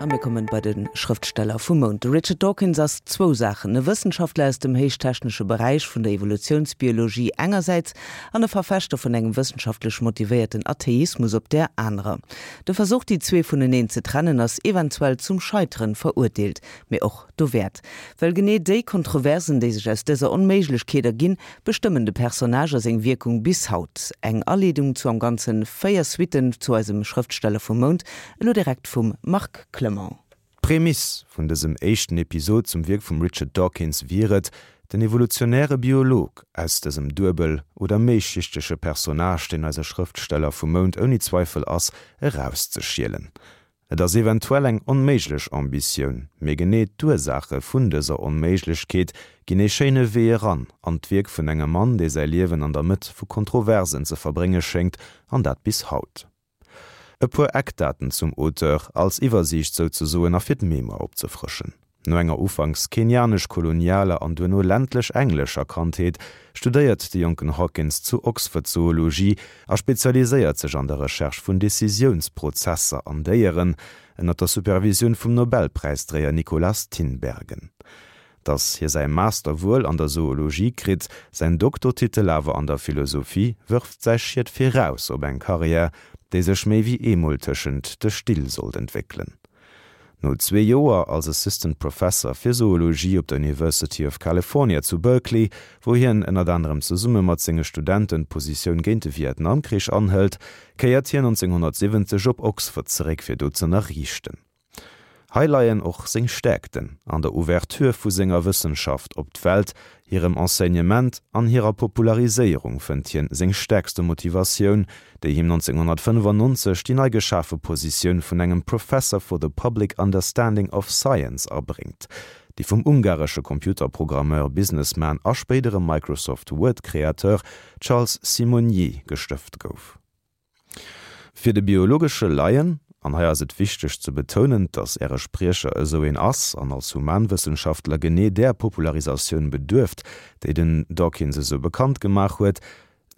A mir kommen bei de Schrëftsteller vum Mount. De Richard Dawkins ass zwou Saachen, e Wëssenschaftler aus dem héichtechnesche Beräich vun der Evolutiounsbiologie engersäits an e Verfechter vun engem wëssenschaftlech motivéierten Atheismus op där anerer. De Versuch, déi zwee vuneneen ze trennen, ass eventuell zum Scheiteren verurteelt, mee och dowäert. Well genee déi Kontroversen, déi sech aus dëser Onméiglechkeet erginn, bestëmmen de Personnage a seng Wierkung bis haut. Eng Aleedung zu am Ganze 4 Suitten zu eisem Schrëftsteller vum Mount, elo direkt vum Marc Clement. D'Prämiss vun dësem éischten Episod zum Wierk vum Richard Dawkins wier et, den evolutionäre Biolog aus dësem duebel oder méischichtege Personnage, deen eise Schrëftsteller vum Mount ouni Zweifel ass, erauszeschielen. Et ass eventuell eng onméiglech Ambitioun, mee genee d'Ursaache vun dëser Onméiglechkeet ginn ee schéine Wee eran an d'Wierk vun engem Mann, dee säi Liewen an der Mëtt vu Kontroversen ze verbrénge schéngt, an dat bis haut. E puer Eckdaten zum Auteur, als Iwwersiicht souzesoen a fir d'Mémoire opzefrëschen. No enger ufanks kenianesch-kolonialer an duerno ländlech-englescher Kandheet studéiert de jonken Hawkins zu Oxford Zoologie a spezialiséiert sech an der Recherche vun Decisiounsprozesser an Déieren, ënner der Supervisioun vum Nobelpräisdréier Nikolaas Tinbergen. Datt hie säi Master wuel an der Zoologie kritt, säin Doktortitel awer an der Philosophie, wërft säi Schiet viraus op eng Karriär, déi sech méi wéi eemol tëschent de Still sollt entwéckelen. No zwee Joer als Assistant Professor fir Zoologie op der University of California zu Berkeley, wou hien ënnert anerem zesumme mat senge Studenten d'Positioun géint de Vietnamkrich anhëlt, kéiert hien 1970 op Oxford zeréck fir do z'ënnerriichten. Hei leien och seng Stäerkten, an der Ouverture vu senger Wëssenschaft op d'Welt, Hirem Enseignement an hirer Populariséierung fënnt hien seng stäerkste Motivatioun, déi him 1995 déi nei geschafe Positioun vun engem Professor for the Public Understanding of Science abréngt, déi vum ungaresche Computerprogrammeur, Businessman a spéidere Microsoft Word-Kreateur Charles Simonyi gestëft gouf. Fir de biologesche Laien, an hei ass et wichteg ze betounen, dass Äre Spriecher esou een ass an als Humanwëssenschaftler genee där Popularisatioun beduerft, déi den Dawkins esou bekannt gemaach huet,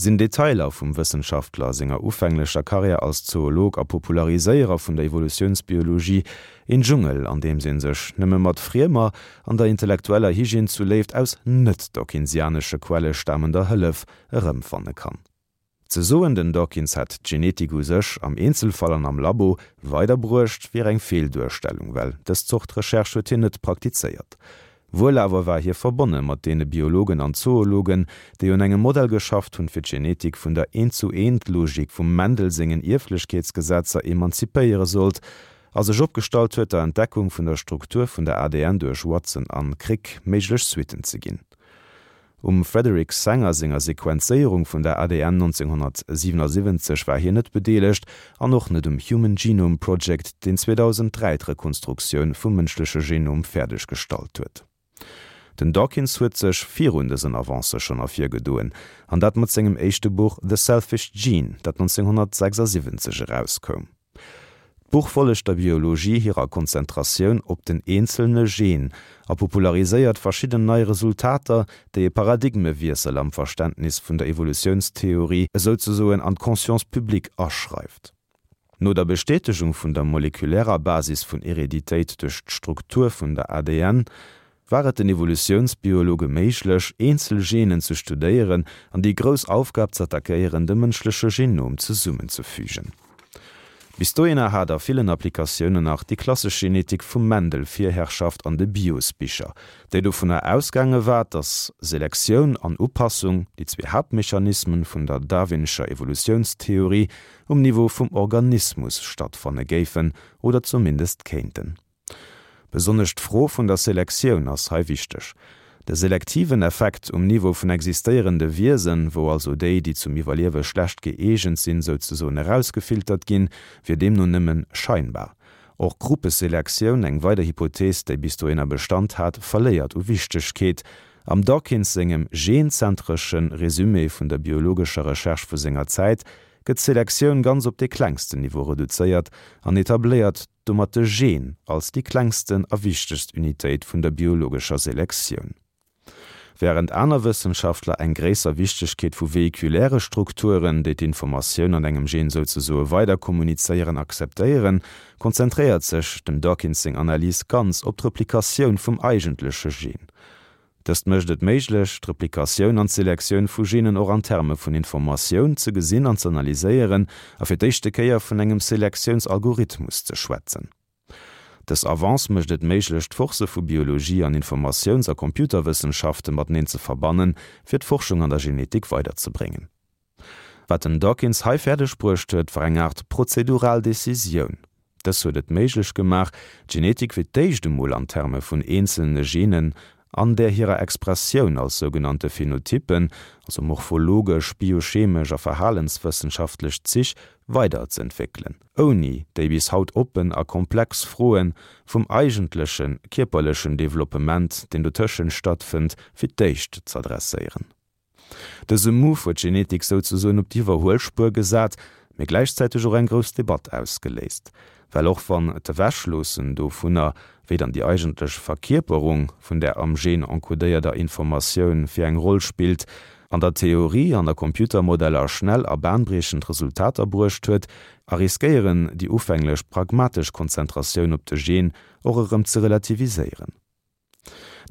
sinn Detailer vum Wëssenschaftler senger ufänglecher Karriär als Zoolog a Populariséierer vun der Evolutiounsbiologie een Dschungel, an deems ee sech nëmme mat friemer, an der intellektueller Hygiène zu Léift aus net-dawkinsianesche Quelle stamender Hëllef erëmfanne kann. Ze soen, den Dawkins hätt d'Genetik u sech, am Eenzelfall an am Labo, weiderbruecht, wier eng Feelduerstellung, well dës Zort Recherche huet hien net praktizéiert. Wuel awer war hie verbonne mat deene Biologen an Zoologen, déi un engem Modell geschafft hunn, fir d'Genetik vun der Eent-zu-Eent-Logik vum Mendel sengen Ierflechkeetsgesetzer emanzipéiere sollt, a sech opgestallt huet, der Entdeckung vun der Struktur vun der ADN duerch Watson an Crick méiglech Suitten ze ginn. Um Frederick Sanger senger Sequenzéierung vun der ADN 1977 war hien net bedeelegt an och net um Human Genome Project, deen 2003 d'Rekonstruktioun vum mënschleche Genom fäerdeg gestallt huet. Den Dawkins huet sech virun dësen Avancë schonn ervirgedoen, an dat mat sengem éischte Buch The Selfish Gene, dat 1976 erauskoum. D'Buch follegt der Biologie hirer Konzentratioun op den eenzelne Gen a populariséiert verschidden nei Resultater, déi e Paradigmewiessel am Verständnis vun der Evolutiounstheorie esouzesoen an d'Conscience publique aschreift. No der Bestätegung vun der molekulärer Basis vun Hereditéit duerch d'Struktur vun der ADN, war et den Evolutiounsbiologe méiglech, eenzel Genen ze studéieren an déi grouss Aufgab z'attackéieren, de mënschleche Genom zesummenzefügen. Bis dohinner hat a villen Applikatiounen nach déi klassesch Genetik vum Mendel Virherrschaft an de Biosbicher, déi dovunner ausgaange war, datt Selektioun an Upassung, déi zwee Haaptmechanismen vun der darwinescher Evolutiounstheorie, um Niveau vum Organismus stattfanne géifen oder zumindest kéinten. Besonnesch d'Fro vun der Selektioun ass hei wichteg. De selektiven Effekt um Niveau vun existéierende Wiesen, wou also déi, déi zum Iwwerliewe schlecht gëeegent sinn, souzesoen erausgefiltert ginn, wier deemno nëmmen scheinbar. Och Gruppeselektioun, eng weider Hypothees, déi bis dohinner Bestand hat, verléiert u Wichtegkeet. Am Dawkins sengem genzentresche Resumé vun der biologescher Recherche vu senger Zäit gëtt d'Selektioun ganz op dee klengsten Niveau reduzéiert an etabléiert domat de Gen als déi klengsten a wichtegst Unitéit vun der biologescher Selektioun. Wärend aner Wëssenschaftler eng gréisser Wichtegkeet vu vehikuläre Strukturen, déi d'Informatioun an engem Gen souzesoe weiderkommunizéieren, akzeptéieren, konzentréiert sech dem Dawkins seng Analys ganz op d'Replikatioun vum eigentleche Gen. Dëst mécht et méiglech, d'Replikatioun an d'Selektioun vu Genen och an Terme vun Informatioun ze gesinn an z'analyséieren a fir d'éischte Kéier vun engem Selektiounsalgorithmus ze schwätzen. Dës Avance mécht et méiglech, d'Forcë vu Biologie an Informatiouns a Computerwëssenschafte mateneen ze verbannen, fir d'Forschung an der Genetik weiderzebréngen. Wat den Dawkins hei fäerdeg bruecht huet, war eng Aart prozedural Decisioun. Dës huet et méiglech gemaach, d'Genetik fir d'éischt emol an Terme vun eenzelne Genen an där hirer Expressioun als sougenannte Phenotyppen, also morphologesch, biochemesch a verhalenswëssenschaftlech Zich, weiderzëentwéckelen, ouni déi bis haut oppen a komplex Froe vum eigentleche kierperlechen Developpement, deen dotëschent stattfënnt, fir d'éischt z'adresséieren. Dëse Move huet d'Genetik souzesoen op d'Iwwerhuelspuer gesat, mee gläichzäiteg och eng grouss Debatt ausgeléist. Well och wann d'Ewechloossen dovunner, wéi dann déi eigentlech Verkierperung vun där am Gen encodéierter Informatioun fir eng Roll spillt, an der Theorie an a Computermodeller schnell a bahnbriechend Resultater bruecht huet, a riskéieren déi ufänglech pragmatesch Konzentratioun op de Gen och erëm ze relativiséieren.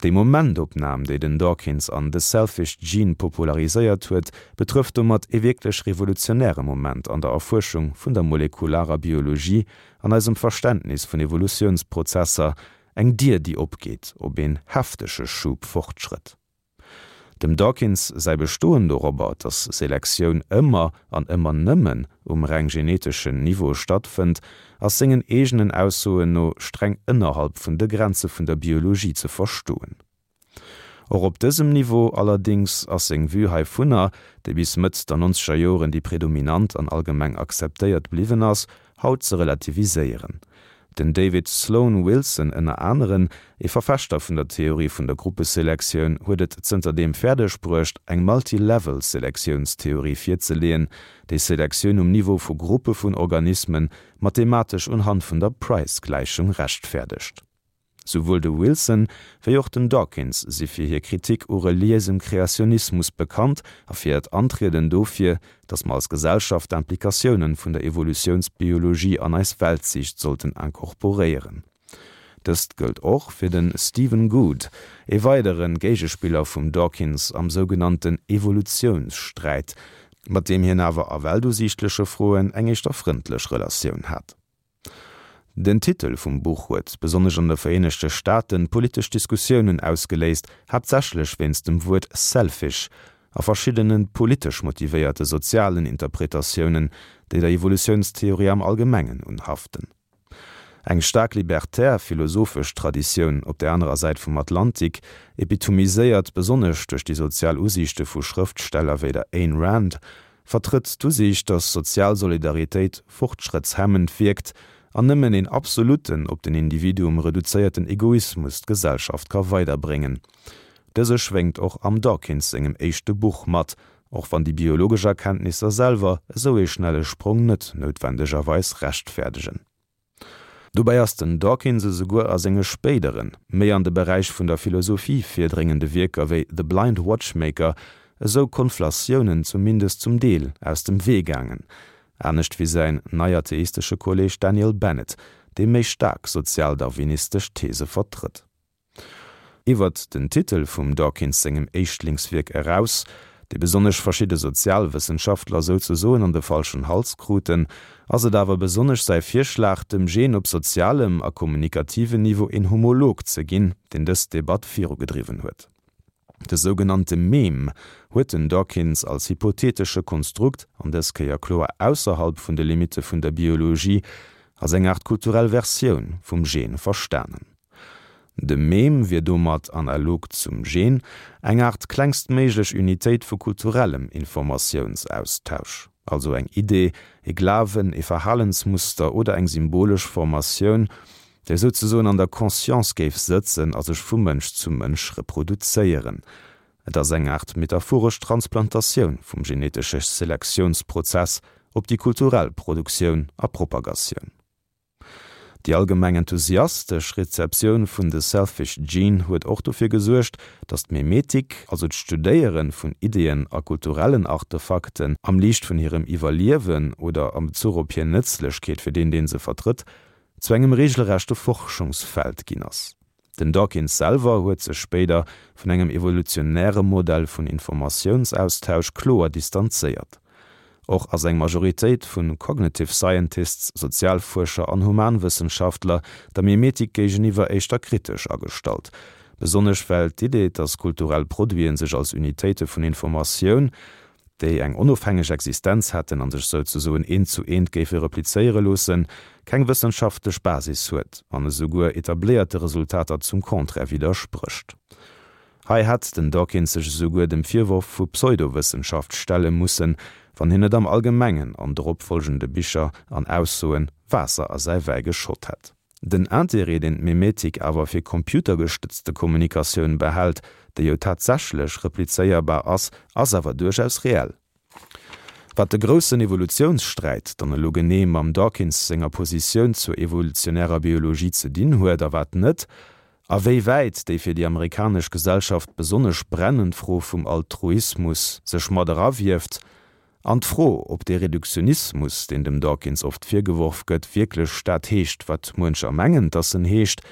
Déi Momentopnam, déi den Dawkins an The Selfish Gene populariséiert huet, betrëfft domat ee wierklech revolutionäre Moment an der Erfuerschung vun der molekularer Biologie an eisem Verständnis vun Evolutiounsprozesser, eng Dier, déi opgeet op een heftege Schub Fortschrëtt. Dem Dawkins säi Bestoen dorobber, datt Selektioun ëmmer an ëmmer nëmmen um reng geneteschen Niveau stattfënnt, ass sengen eegenen Aussoen no streng ënnerhalb vun de Grenze vun der Biologie ze verstoen. Och op dësem Niveau allerdéngs ass seng Vue heivunner, déi bis Mëtt der nonzeger Joren déi predominant an allgemeng akzeptéiert bliwwen ass, haut ze relativiséieren. Den David Sloan Wilson ënner aneren, ee Verfechter vun der Theorie vun der Gruppeselektioun, huet et zënterdeem fäerdeg bruecht, eng Multi-Level-Selektiounstheorie virzeleeën, déi Selektioun um Niveau vu Gruppe vun Organisme mathematesch unhand vun der Price-Gläichung rechtfäerdegt. Souwuel de Wilson wéi och den Dawkins si fir hir Kritik u reliéisem Kreationismus bekannt a fir hiert Antrieden dofir, datt mer als Gesellschaft d'Implikatiounen vun der Evolutiounsbiologie an eis Weltsiicht sollten incorporéieren. Dëst gëllt och fir de Stephen Gould, ee weidere Géigespiller vum Dawkins am sougenannten Evolutiounssträit, mat deem hien awer a weltusiichtleche Froen eng éischter frëndlech Relatioun hat. Den Titel vum Buch huet, besonnesch an de Vereenegte Staaten, politesch Diskussiounen ausgeléist, haaptsächlech wéinst dem Wuert selfish a verschiddene politesch motivéierte sozialen Interpretatiounen, déi der Evolutiounstheorie am Allgemengen unhaften. Eng staark libertär philosophesch Traditioun op der anerer Säit vum Atlantik, epitomiséiert besonnesch duerch déi sozial Usiichte vu Schrëftsteller wéi der Ayn Rand, vertrëtt d'Usiicht, datt sozial Solidaritéit fortschrëttshemmend wierkt an nëmmen een absolutten, op den Individuum reduzéierten Egoismus d'Gesellschaft ka weiderbréngen. Dëse schwéngt och am Dawkins sengem éischte Buch mat, och wann déi biologesch Erkenntnisser selwer esou ee schnelle Sprong net noutwendegerweis rechtfäerdegen. Dobäi ass den Dawkins esouguer a senge spéideren, méi an de Beräich vun der Philosophie virdréngende Wierker wéi The Blind Watchmaker esou Konflatiounen zumindest zum Deel aus dem Wee gaangen, anescht wéi säin neiatheistesche Kolleeg Daniel Bennett, dee méi staark sozialdarwinistesch These vertrëtt. Iwwert den Titel vum Dawkins sengem Éischtlingswierk eraus, dee besonnesch verschidde Sozialwëssenschaftler souzesoen an de falschen Hals kruten, ass et awer besonnesch säi Virschlag, dem Gen op sozialem a kommunikativen Niveau een Homolog ze ginn, deen dës Debatt virugedriwwen huet. De sougenannte Meme huet den Dawkins als hypothetesche Konstrukt, an dës Kéier kloer ausserhalb vun de Limitte vun der Biologie, als eng Aart kulturell Versioun vum Gen verstanen. De Meme wier domat, analog zum Gen, eng Aart klengstméiglech Unitéit vu kulturellem Informatiounsaustausch, also eng Idee, e Glawen, e Verhalensmuster oder eng symbolesch Formatioun, déi souzesoen an der Conscience géif sëtzen a sech vu Mënsch zu Mënsch reproduzéieren. Et ass eng Aart metaphoresch Transplantatioun vum genetesche Selektiounsprozess op déi kulturell Produktioun a Propagatioun. Déi allgemeng enthusiastesch Rezeptioun vun The Selfish Gene huet och dofir gesuergt, datt d'Memetik, also d'Studéiere vun Ideeën a kulturellen Artefakten am Liicht vun hirem Iwwerliewen oder am Bezuch op hir Nëtzlechkeet fir deen, dee se vertrëtt, zu engem reegelrechte Forschungsfeld ginn ass. Den Dawkins selwer huet sech spéider vun engem evolutionäre Modell vun Informatiounsaustausch kloer distanzéiert. Och ass eng Majoritéit vu Cognitive Scientists, Sozialfuerscher an Humanwëssenschaftler der Mimetik géigeniwwer éischter kritesch agestallt, besonnesch well d'Idee, dass kulturell Produiten sech als Unitéite vun Informatioun, déi eng onofhängeg Existenz hätten an sech souzesoen eent zu eent géife replizéiere loossen, keng wëssenschaftlech Basis huet an esouguer etabléierte Resultater zum Contraire widdersprécht. Hei hätt den Dawkins sech esouguer dem Virworf vu Pseudowëssenschaft stelle mussen, wann hien net am Allgemengen an drop folgende Bicher an Aussoen Waasser a säi Wäi geschott hätt. Den Interêt, deen d'Memetik awer fir computergestëtzte Kommunikatioun behält, déi jo tatsächlech replizéierbar ass, ass awer duerchaus reell. Wat de groussen Evolutiounssträit dann elo genee mam Dawkins senger Positioun zur evolutionärer Biologie ze dinn huet a wat net, a wéi wäit déi fir déi amerikanesch Gesellschaft besonnesch brennend Fro vum Altruismus sech mat erawieft, An d'Fro, ob dee Reduktionismus, deen dem Dawkins oft virgeworf gëtt, wierklech dat heescht, wat muencher mengen, dass en heescht,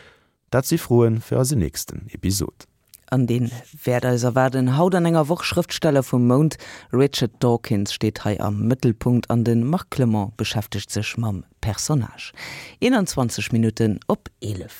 dat si Froe fir eisen nächsten Episod. An dee wäert eis erwaarden. Haut an enger Woch, Schrëftsteller vum Mount, Richard Dawkins steet hei am Mëttelpunkt an de Marc Clement beschäftegt sech mam Personnage. 21 Minutten op 11.